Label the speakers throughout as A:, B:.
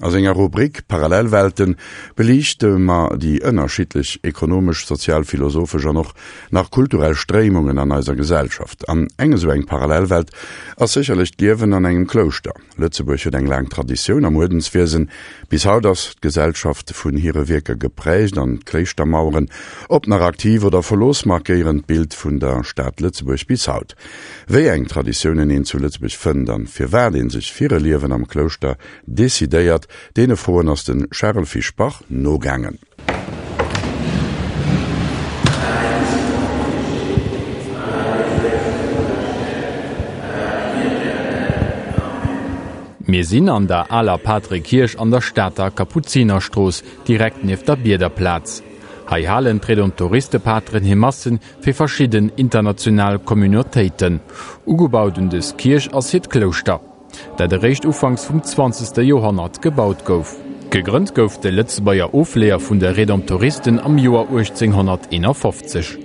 A: A senger Rubrik Parallelwelten beliichte mer déi ënnerschiddlech ekonomesch, sozial, philosophesch an och nach kulturell Stréimungen an eiser Gesellschaft. An eng esou eng Parallelwelt ass sécherlech d'Liewen an engem Klouschter. Lëtzebuerg huet eng laang Traditioun am Uerdenswiesen. Bis haut ass d'Gesellschaft vun hire Wierker geprägt an d'Kléischtermaueren, ob nach aktiv oder verlooss, markéieren d'Bild vun der Stad Lëtzebuerg bis haut. Wéi eng Traditiounen een zu Lëtzebuerg fënnt an firwat een sech fir e Liewen am Klouschter decidéiert, deene Froen ass de Charel Fischbach nogaangen.
B: Mir sinn an der aler Patrekierch an der Stater Kapuzinerstrooss, direkt nieft der Biederplaz. Hei halen d'Redemptoristepateren hir Massen fir verschidden international Communautéiten. Ugebaut un dës Kierch ass hiert Klouschter. dat eréischt ufanks vum zwanzegste Joerhonnert gebaut gouf. Gegrënnt gouf de Lëtzebuerger Ofleeër vun de Redemptoristen am Joer 1851.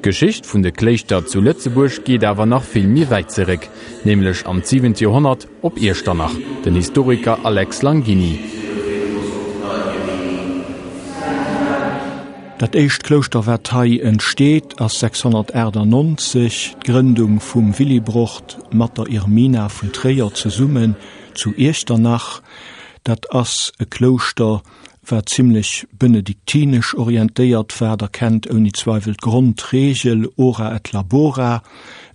B: D'Geschicht vun de Kléischter zu Lëtzebuerg geet awer nach vill méi wäit zeréck, nämlech an d'siwent Joerhonnert op Iechternach. Den Historiker Alex Langini.
C: Dat éischt Klouschter wat hei entsteet ass 698, d'Grëndung vum Willibrord mat der Irmina vun Tréier zesummen zu Iechternach. Dat ass e Klouschter wat zimlech benediktinesch orientéiert war. Der kennt ouni Zweiwel d'Grondregel Ora et labora,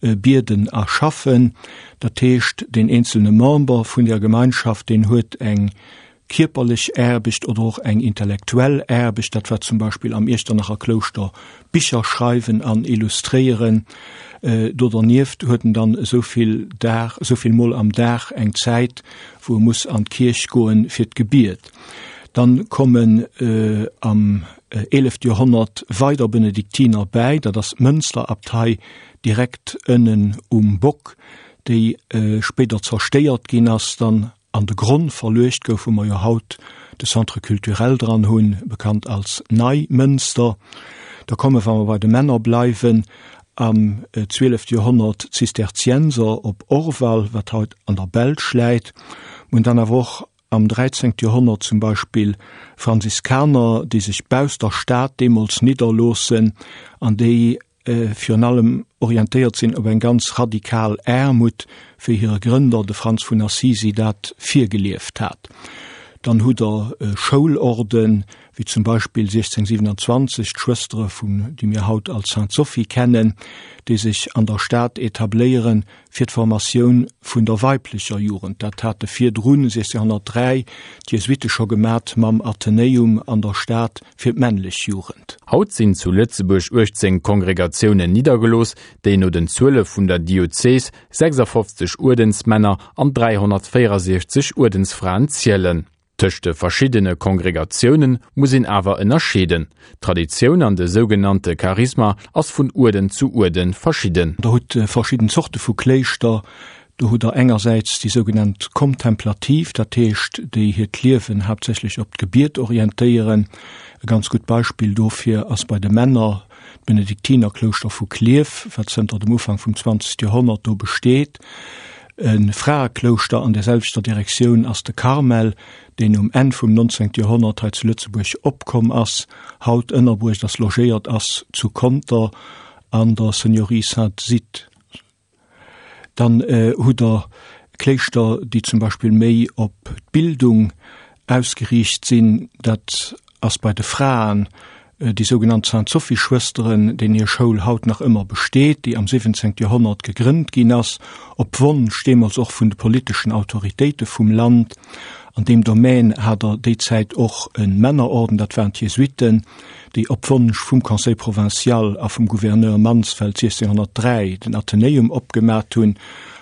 C: bieden a schaffen. Dat heescht deen eenzelne Member vun der Gemeinschaft deen huet eng kierperlech Aarbecht oder och eng intellektuell Aarbecht, dat war zum Beispill am Iechternacher Klouschter Bicher schreiwen an illustréieren. Do dernieft huet en dann esou vill Dag, esou vill Mol am Dag eng Zäit, wou e muss an d'Kierch goen fir d'Gebiet. Dann kommen am eelefte Joerhonnert weider Benediktiner bäi, dat ass d'Mënsterabtei direkt ënnen um Bock, déi spéider zerstéiert ginn ass dann an de Gronn verluecht gouf, wou mer jo haut de Centre culturel dran hunn, bekannt als Neimënster. Da komme, wa mer bei de Männer bleiwen, am zwielefte Joerhonnert d'Zisterzienser op Orval, wat haut an der Belsch läit. Mer hunn dann awer och am dräizéngte Joerhonnert zum Beispill Franziskaner, déi sech bausst der Stad deemools nidderloossen an déi virun allem orientéiert sinn op eng ganz radikal Aarmut, wéi hire Grënder, de Franz vun Assisi, dat virgelieft hat. Dann hutt Der Schoulorden, wéi zum Beispill 1627 d'Schwëstere vun, déi mir haut als Sainte-Sophie kennen, déi sech an der Stad etabléieren, fir d'Formatioun vun der weiblecher Jugend. Dat hate virdrun, 1603, d'Jesuitte scho gemat mam Athenäum an der Stad fir d'männlech Jugend.
B: Haut sinn zu Lëtzebuerg 18 Kongregatiounen niddergelooss, déi no den Zuele vun der Diözes 56 Uerdensmänner an 364 Uerdensfraen zielen. Tëscht de verschiddene Kongregatioune muss een awer ënnerscheeden. D'Traditioun an de sougenannte Charisma ass vun Uerden zu Uerde verschidden.
C: Der hutt verschidden Zorte vu Kléischter. Do hutt der engersäits déi sougenannt Kontemplativ, dat heescht déi hiert Liewen haaptsächlech op d'Gebiet orientéieren. E ganz gutt Beispill dofir ass bei de Männer d'Benediktinerklouschter vu Klierf, wat zënter dem Ufank vum 20. Joerhonnert do besteet. E Fraeklouschter an där selwechter Direktioun ass de Karmel, deen um Enn vum 19. Joerhonnert hei zu Lëtzebuerg opkomm ass, haut ënnerbruecht ass, logéiert ass zu Conter an der Seigneurie Sainte-Zithe. Dann hutt Der Kléischter, déi zum Beispill méi op d'Bildung ausgeriicht sinn. Dat ass bei de Fraen déi sougenannt Sainte-Sophie-Schwësteren, deenen hir Schoul haut nach ëmmer besteet, déi am 17. Joerhonnert gegrënnt ginn ass, op Wonsch deemools och vun de politeschen Autoritéite vum Land. An deem Domän hat Der déi Zäit och e Männerorden, dat waren d'Jesuiten, déi op Wonsch vum Conseil provincial a vum Gouverneur Mansfeld 1603 den Athenäum opgemat hunn,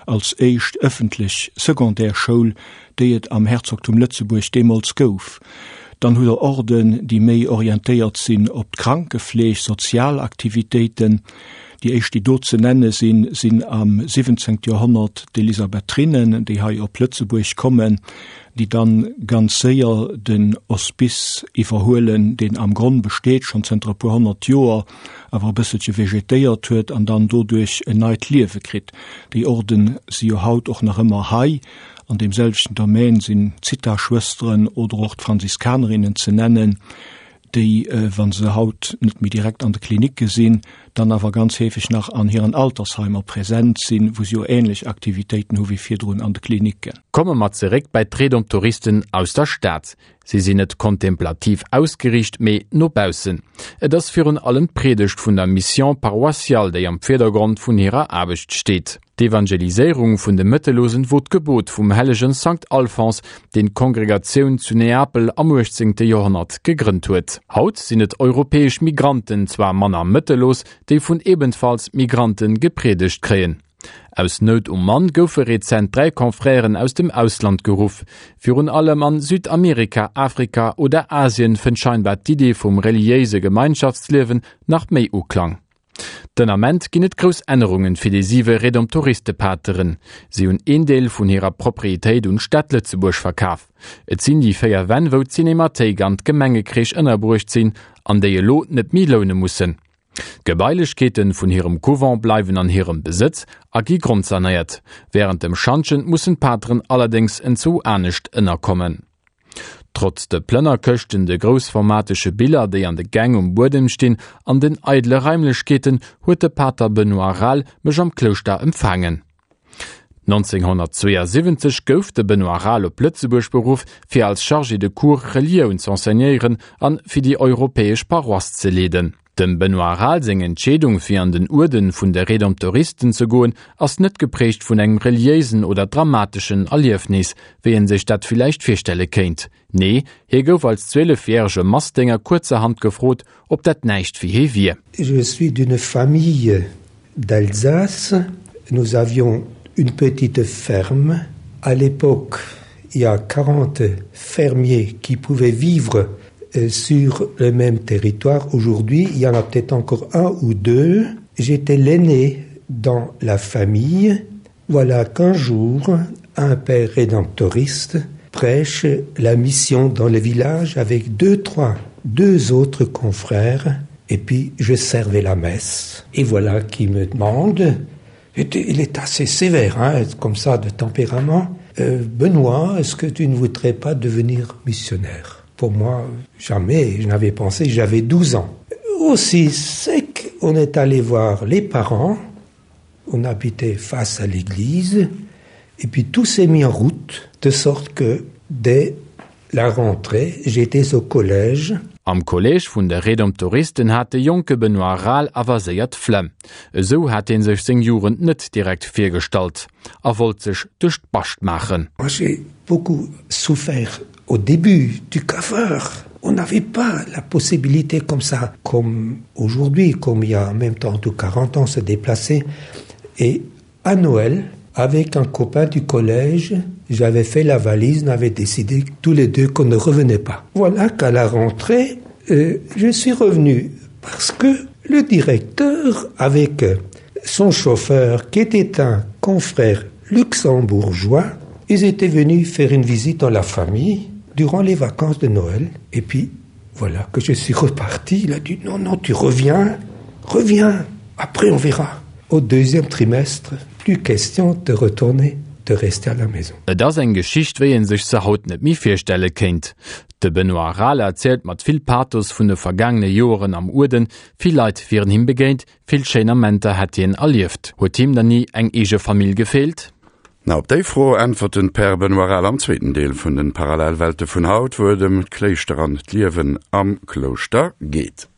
C: als éischt ëffentlech Secondaire-Schoul, déi et am Herzogtum Lëtzebuerg deemools gouf. Dann hutt Der Orden, déi méi orientéiert sinn op d'Krankefleeg, sozial Aktivitéiten. Déi éischt, déi do ze nenne sinn, sinn am 17. Joerhonnert d'Elisabethrinnen, déi hei op Lëtzebuerg kommen, déi dann ganz séier den Hospice iwwerhuelen, deen am Gronn besteet schonn zënter e puer honnert Joer, awer e bësselche vegetéiert huet an dann doduerch en neit Liewe kritt. Déi Orden si jo haut och nach ëmmer hei. An deem selwechten Domaine sinn d'Zitha-Schwësteren oder och d'Franziskanerinnen ze nennen, déi, wa se haut net méi direkt an de Klinicke sinn, dann awer ganz heefeg nach an hiren Altersheimer present sinn, wou se jo ähnlech Aktivitéiten hu wéi virdrun an de Klinicken.
B: Komme mer zeréck bei d'Redemptoristen aus der Stad. Si sinn net kontemplativ ausgeriicht, mee no baussen. Et ass virun allem d'Priedegt vun der Mission paroissiale, déi am Virdergrond vun hirer Aarbecht steet. D'Evangeliséierung vun de Mëttellosen wor d'Gebot vum hellegen Sankt Alphons, deen d'Kongregatioun zu Neapel am 18. Joerhonnert gegrënnt huet. Haut sinn et europäesch Migranten, zwar manner mëttellos, déi vun ebenfalls Migranten gepriedegt kréien. Aus Nout um Mann goufe rezent 3 Confrèren aus dem Ausland geruff. Virun allem an Südamerika, Afrika oder Asien fënnt scheinbar d'Idee vum reliéise Gemeinschaftsliewen nach méi Uklang. Den Ament ginn et grouss Ännerungen fir déi siwe Redemptoristepateren. Si hunn een Deel vun hirer Proprietéit un d'Stad Lëtzebuerg verkaf. Et sinn déi 4 Wänn wou d'Cinémathéik an d'Gemengecrèche ënnerbruecht sinn an déi elo net méi loune mussen. D'Gebailechkeeten vun hirem Couvent bleiwen an hirem Besëtz a gi grondsanéiert. Wärend dem Schantjen mussen d'Pateren allerdéngs enzwou anescht ënnerkommen. Trotz de Plënnerkëschten, de groussformatege Biller, déi an de Gäng um Buedem stinn, an den eidele Raimlechkeeten, huet de Pater Benoît Rahl mech am Klouschter empfaangen. 1972 gouf de Benoît Rahl op Lëtzebuerg beruff, fir als Chargé de cours Relioun z'enseignéieren an fir déi europäesch Paroisse ze leeden. Dem Benoît Rahl seng Entscheedung fir an den Uerden vun de Redemptoristen ze goen, ass net geprägt vun engem reliéisen oder dramateschen Erliefnis, wéi en sech dat villäicht virstelle kéint. Nee, hie gouf als 12 järege Massdénger kuerzerhand gefrot, ob dat näischt fir hie wier.
D: Je suis d'une famille d'Alsace. Nous avions une petite ferme. À l'époque, il y a 40 fermiers qui pouvaient vivre euh, sur le même territoire. Aujourd'hui, il y en a peut-être encore un ou deux. J'étais l'aîné dans la famille. Voilà qu'un jour, un père rédemptoriste prêche la mission dans le village avec deux, trois, deux autres confrères et puis je servais la messe. Et voilà qui me demande, il est assez sévère, hein, comme ça de tempérament, euh, Benoît, est-ce que tu ne voudrais pas devenir missionnaire Pour moi, jamais, je n'avais pensé, j'avais 12 ans. Aussi sec, on est allé voir les parents, on habitait face à l'église, et puis tout s'est mis en route, de sorte que dès la rentrée, j'étais au collège.
B: Am Kolleeg vun de Redemptoristen hat de jonke Benoît Rahl awer séier d'Flemm. Esou hat hie sech seng Jugend net direkt virgestallt a wollt sech duerch d'Bascht maachen.
D: Moi j'ai beaucoup souffert au début du cafard. On n'avait pas la possibilité comme ça, comme aujourd'hui, comme il y a en même temps de 40 ans se déplacer. Et à Noël, avec un copain du collège, j'avais fait la valise, on avait décidé tous les deux qu'on ne revenait pas. Voilà qu'à la rentrée, euh, je suis revenu parce que le directeur, avec son chauffeur, qui était un confrère luxembourgeois, ils étaient venus faire une visite dans la famille durant les vacances de Noël. Et puis, voilà que je suis reparti. Il a dit non, non, tu reviens, reviens, après on verra. Au deuxième trimestre, plus question de retourner, de rester à la maison.
B: Et ass eng Geschicht, wéi een sech se haut net méi virstelle kéint. De Benoît Rahl erzielt mat vill Pathos vun de vergaangene Joeren am Uerden. Vill Leit wieren him begéint, vill schéin Amenter hätt hien erlieft. Huet him dann ni eng eege Famill gefeelt?
A: Na, op déi Fro äntwert den Père Benoît Rahl am zweeten Deel vun den Parallelwelte vun haut, wou et ëm d'Kléischter an d'Liewen am Klouschter geet.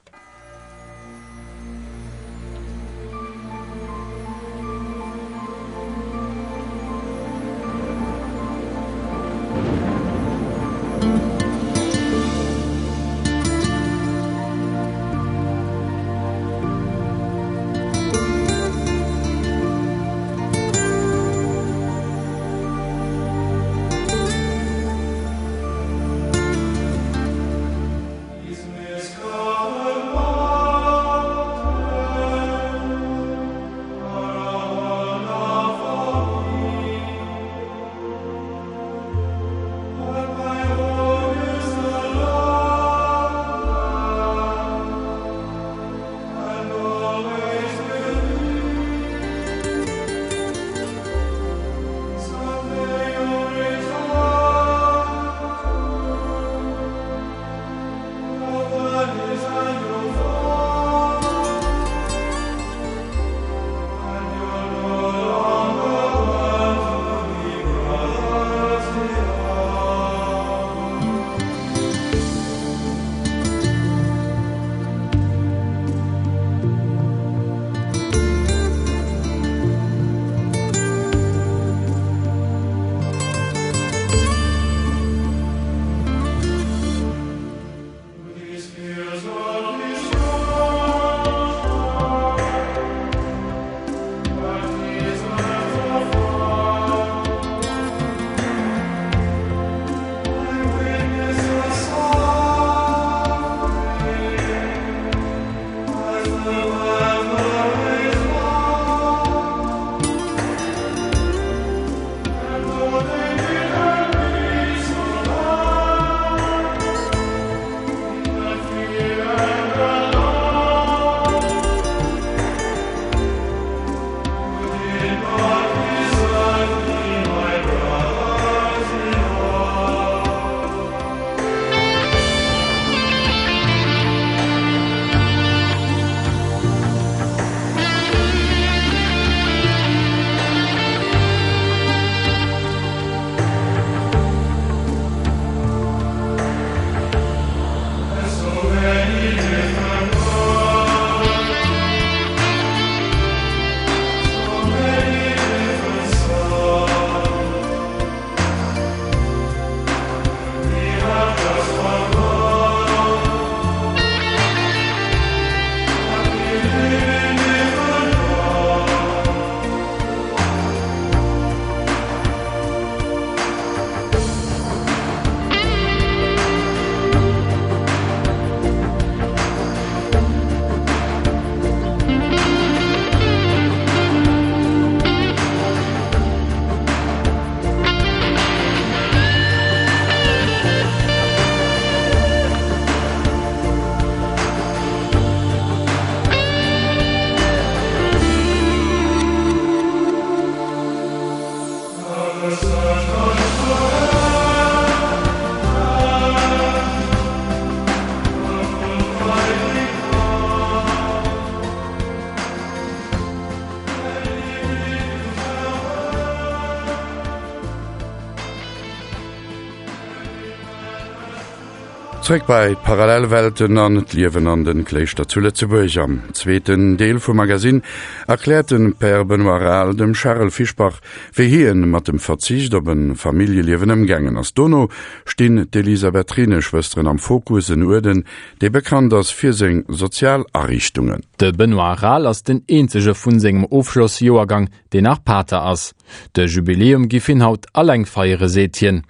A: Zréck bei d'Parallelwelten an d'Liewen an den Kléischter zu Lëtzebuerg. Am zweeten Deel vum Magasinn erkläert den Père Benoît Rahl dem Charel Fischbach, wéi hien mat dem Verzicht op en Familljeliewen ëmgaangen ass. Dono stinn d'Elisabethrineschwësteren am Fokus, en Uerden, dee bekannt ass fir seng sozial Ariichtungen.
B: De Benoît Rahl ass den eenzege vun sengem Ofschlossjoergang, deen nach Pater ass. De Jubiläum giff hien haut alleng feiere seet hien.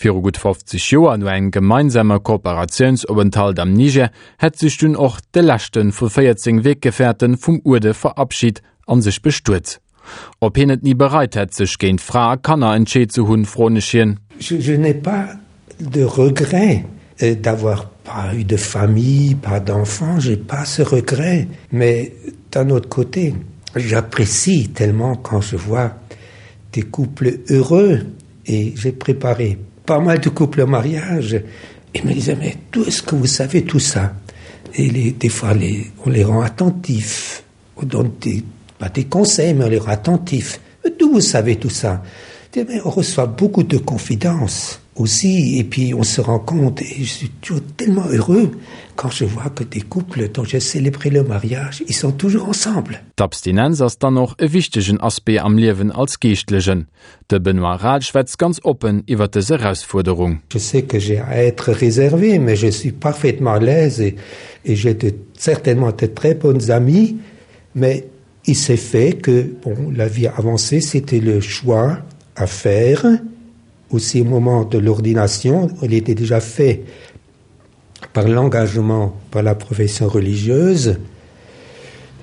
B: Viru gutt 50 Joer, no engem gemeinsame Kooperatiounsopenthalt am Niger, hätt sech dunn och de leschte vu 14 Weggeferten vum Uerde verabschit an sech bestuet. Ob hien et ni bereit hätt, sech géint Fra a Kanner entscheet ze hunn, froen ech hien.
D: Je n'ai pas de regret d'avoir pas eu de famille, pas d'enfants, j'ai pas ce regret. Mais d'un autre côté, j'apprécie tellement quand je vois des couples heureux et j'ai préparé pas mal de couples au mariage et me disaient mais d'où est-ce que vous savez tout ça et les, des fois les, on les rend attentifs on donne des, pas des conseils mais on les rend attentifs d'où vous savez tout ça et mais on reçoit beaucoup de confidences aussi et puis on se rend compte et je suis toujours tellement heureux quand je vois que des couples dont j'ai célébré le mariage ils sont toujours ensemble.
B: D'Abstinenz ass dann och e wichtegen Aspect am Liewen als Geeschtlechen. De Benoît Rahl schwätzt ganz oppen iwwer dës Erausfuerderung.
D: Je sais que j'ai à être réservé, mais je suis parfaitement à l'aise et, et j'ai de, certainement de très bonnes amies, mais il s'est fait que bon, la vie avancée, c'était le choix à faire. Aussi au moment de l'ordination, il était déjà fait par l'engagement par la profession religieuse.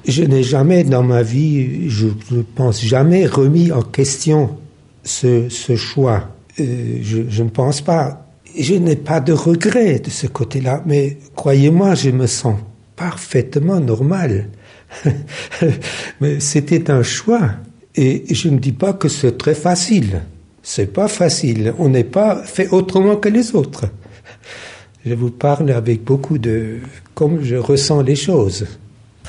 D: Je n'ai jamais dans ma vie, je ne pense jamais remis en question ce, ce choix. Euh, je, je ne pense pas. Je n'ai pas de regret de ce côté-là, mais croyez-moi, je me sens parfaitement normal. mais c'était un choix et je ne dis pas que c'est très facile. C'est pas facile, on n'est pas fait autrement que les autres. Je vous parle avec beaucoup de comme je ressens les choses.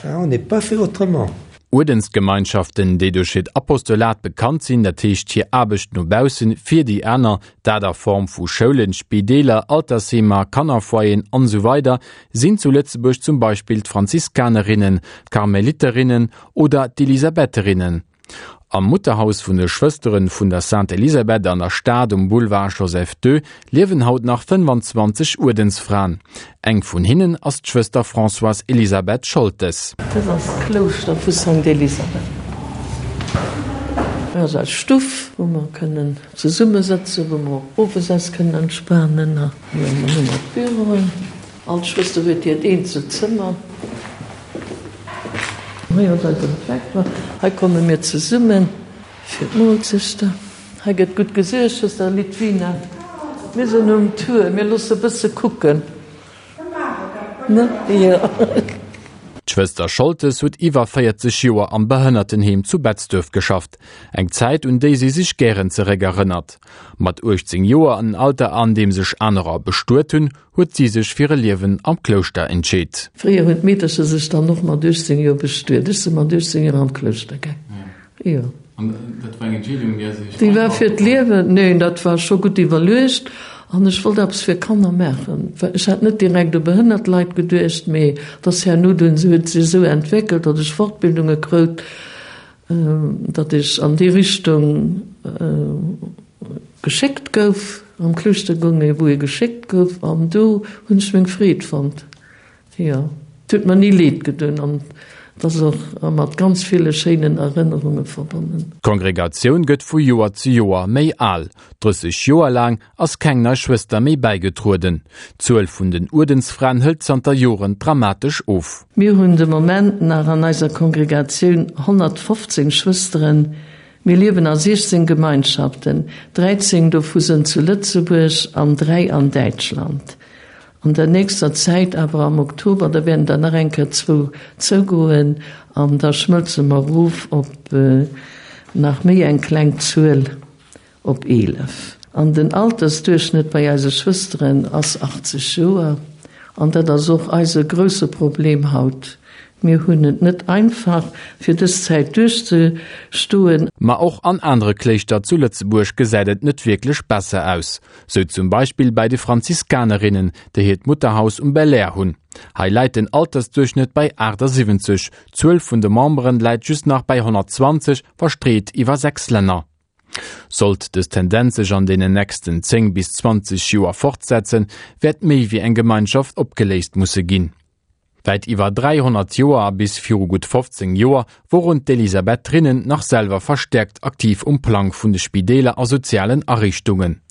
D: On n'est pas fait autrement.
B: Uerdensgemeinschaften, déi duerch hiert Apostolat bekannt sinn, dat heescht hir Aarbecht no baussen, fir déi aner, dat a Form vu Schoulen, Spideeler, Altersheemer, Kannerfoyeren an esou weider sinn zu Lëtzebuerg zum Beispill d'Franziskanerinnen, d'Karmeliterinnen oder d'Elisabetherinnen. Am Mutterhaus vun de Schwësteren vun der Sainte Elisabeth an der Stad um Boulevard Joseph II liewen haut nach 25 Uerdensfraen. Eng vun hinnen ass d'Schwëster Françoise Elisabeth Scholtes.
E: Dës ass d'Klouschter vu Sainte Elisabeth. Hei ass eis Stuff, wou mer kënnen zesummesëtzen, wou mer och owes eis kënnen entspanen. Hei hu mer d'Büroen. All Schwëster huet hiert eenzelt Zëmmer. Hei ass eisen Refektoire. Hei komme mir zesummen fir d'Moolzechter. Hei gëtt gutt gesuergt, Schwëster Lidwina. Mir sinn um Tour, mir loosse bësse kucken. Ne? Jo.
B: D'Schwëster Scholtes huet iwwer 40 Joer am Behënnertenheem zu Betzdöerf geschafft. Eng Zäit, un déi si sech gären zeréckerënnert. Mat 18 Joer, en Alter an deem sech anerer bestuet hunn, huet si sech fir e Liewen am Klouschter entscheet.
E: Fréier hunn d'Meedercher sech dann och mat 18 Joer bestuet. Ech si mat 18 Joer an d'Klouschter gaang. Jo.
B: An dat war eng Entscheedung, déi
E: sech. Déi war fir d'Liewen. Neen, dat war scho gutt iwwerluecht. An ech wollt eppes fir Kanner maachen. Ech hat net direkt u behënnert Leit geduecht, mee et ass herno dunn, huet sech esou entwéckelt, datt ech Fortbildunge krout, datt ech an déi Richtung geschéckt gouf, am Klouschter goung ee wou ee geschéckt gouf an do hunn ech meng Freed fonnt. Jo, et huet mer ni leed gedoen an et ass och mat ganz ville schéinen Erënnerunge verbonnen.
B: D'Kongregatioun gëtt vu Joer zu Joer méi al. 30 Joer laang ass keng nei Schwëster méi bäigetrueden. D'Zuel vun den Uerdensfraen hëlt zanter Joren dramatesch of.
E: Mir hunn de Moment nach an eiser Kongregatioun 115 Schwësteren. Mir liewen a 16 Gemeinschaften, 13 dovu sënn zu Lëtzebuerg an 3 an Däitschland. An der nächster Zäit awer am Oktober, da wäerten der nach eng Kéier zwou zougoen an da schmëlze mer erof op nach méi eng kleng Zuel. Op 11. An den Altersduerchschnëtt bei eise Schwësteren ass 80 Joer. An dat ass och eise grousse Problem haut. Mir hunn et net einfach, fir dës Zäit duerchzestoen.
B: Ma och an anere Kléischter zu Lëtzebuerg gesäit et net wierklech besser aus. Sou zum Beispill bäi de Franziskanerinnen, déi hiert Mutterhaus um Belair hunn. Hei läit den Altersduerchschnëtt bei 78, d'Zuel vun de Memberen läit just nach bäi 120, verstreet iwwer 6 Länner. Sollt dës Tendenz sech an deenen nächsten 10 bis 20 Joer fortsetzen, wäert méi wéi eng Gemeinschaft opgeléist musse ginn. Wäit iwwer 300 Joer a bis viru gutt 15 Joer woren d'Elisabethrinnen nach selwer verstäerkt aktiv um Plang vun de Spideeler a sozialen Ariichtungen.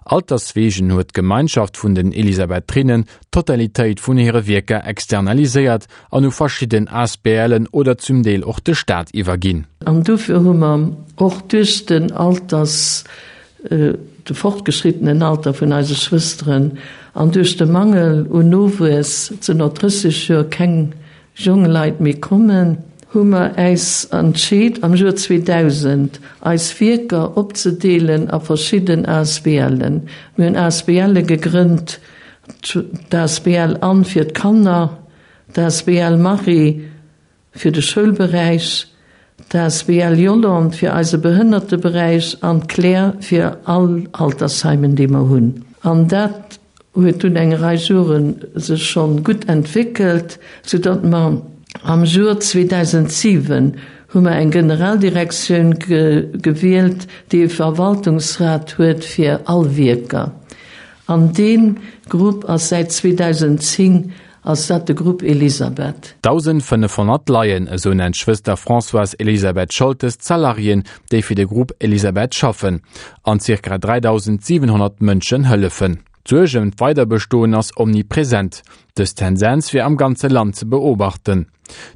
B: Alterswegen huet d'Gemeinschaft vun den Elisabethrinnen d'Totalitéit vun hire Wierker externaliséiert an u verschidden ASBLen oder zum Deel och de Staat iwwerginn.
E: An dofir hu mer och duerch den Alters de fortgeschrittenen Alter vun eise Schwësteren an duerch de Mangel un Nowuess, et sinn no 30 Joer keng jong Leit méi kommen, hu mer äis entscheet am Joer 2000 eis Wierker opzedeelen a verschidden ASBLen. Mir hunn ASBLe gegrënnt, d'ASBL Anne fir d'Kanner, d'ASBL Marie fir de Schoulberäich, d'asbl Yolande fir eise Behënnerteberäich an d'Claire fir all Altersheimen, déi mer hunn. An dat huet dunn eng Rei Jore sech schonn gutt entwéckelt, soudatt mer am Joer 2007 hu mer eng Generaldirektioun gewielt, déi e Verwaltungsrat huet fir all Wierker. An dee Grupp ass säit 2010 Ass dat de Grupp Elisabeth?
B: 1.500 Laien, esou nennt d'Schwëster Françoise-Elisabeth Scholtes d'Salariéen, déi fir de Grupp Elisabeth schaffen an zirka 3.700 Mënschen hëllefen. D'Suerg ëm d'Weiderbestoen ass omnipresent. Dës Tendenz wier am ganze Land ze beobachten.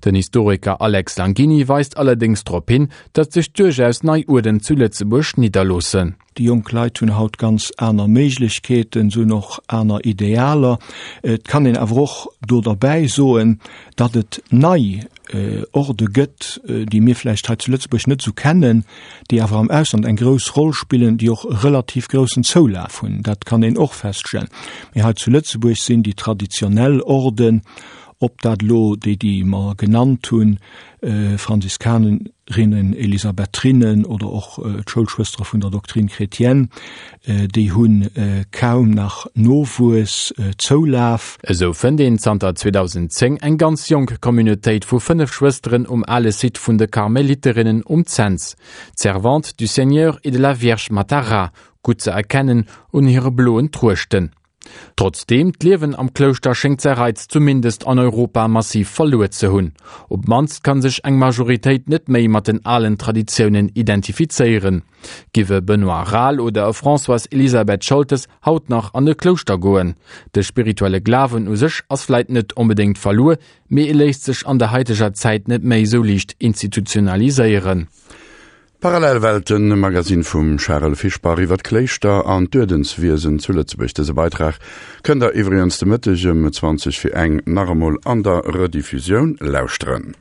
B: Den Historiker Alex Langini weist allerdéngs drop hin, datt sech duerchaus nei Uerden zu Lëtzebuerg nidderloossen.
C: Déi jonk Leit hunn haut ganz aner Méiglechkeeten, se hunn och aner Idealer. Et kann een awer och do derbäi soen, datt et nei Orde gëtt, déi mir vläicht hei zu Lëtzebuerg net esou kennen, déi awer am Ausland eng grouss Roll spillen, déi och e relativ groussen Zoulaf hunn. Dat kann een och feststellen. Mee hei zu Lëtzebuerg sinn déi traditionell Orden, ob dat elo déi, déi mer genannt hunn, Franziskanerinnen, Elisabethrinnen oder och d'Schoulschwëstere vun der Doctrine chrétienne, déi hu kaum nach Nowuess, Zoulaf.
B: Esou fënnt een zanter 2010 eng ganz jonk Communautéit vu 5 Schwësteren um ale Site vun de Karmeliterinnen um Cents, d'Servantes du Seigneur et de la Vierge Matara, gutt ze erkennen un hire bloen Truechten. Trotzdeem, d'Liewen am Klouschter schéngt säi Reiz zumindest an Europa massiv verluer ze hunn. Op d'mannst kann sech eng Majoritéit net méi mat den alen Traditiounen identifizéieren. Giff e Benoît Rahl oder e Françoise-Elisabeth Scholtes haut nach an e Klouschter goen? De spirituelle Glawen u sech ass vläit net onbedéngt verluer, mee e léisst sech an der haiteger Zäit net méi esou liicht institutionaliséieren.
A: Parallelwelten, e Magazine vum Charel Fischbach iwwer d'Kléischter an d'Uerdenswiesen zu Lëtzebuerg. Dëse Beitrag kënnt der iwwregens de Mëtteg ëm 20 fir eng nach emol an der Rediffusioun lauschteren.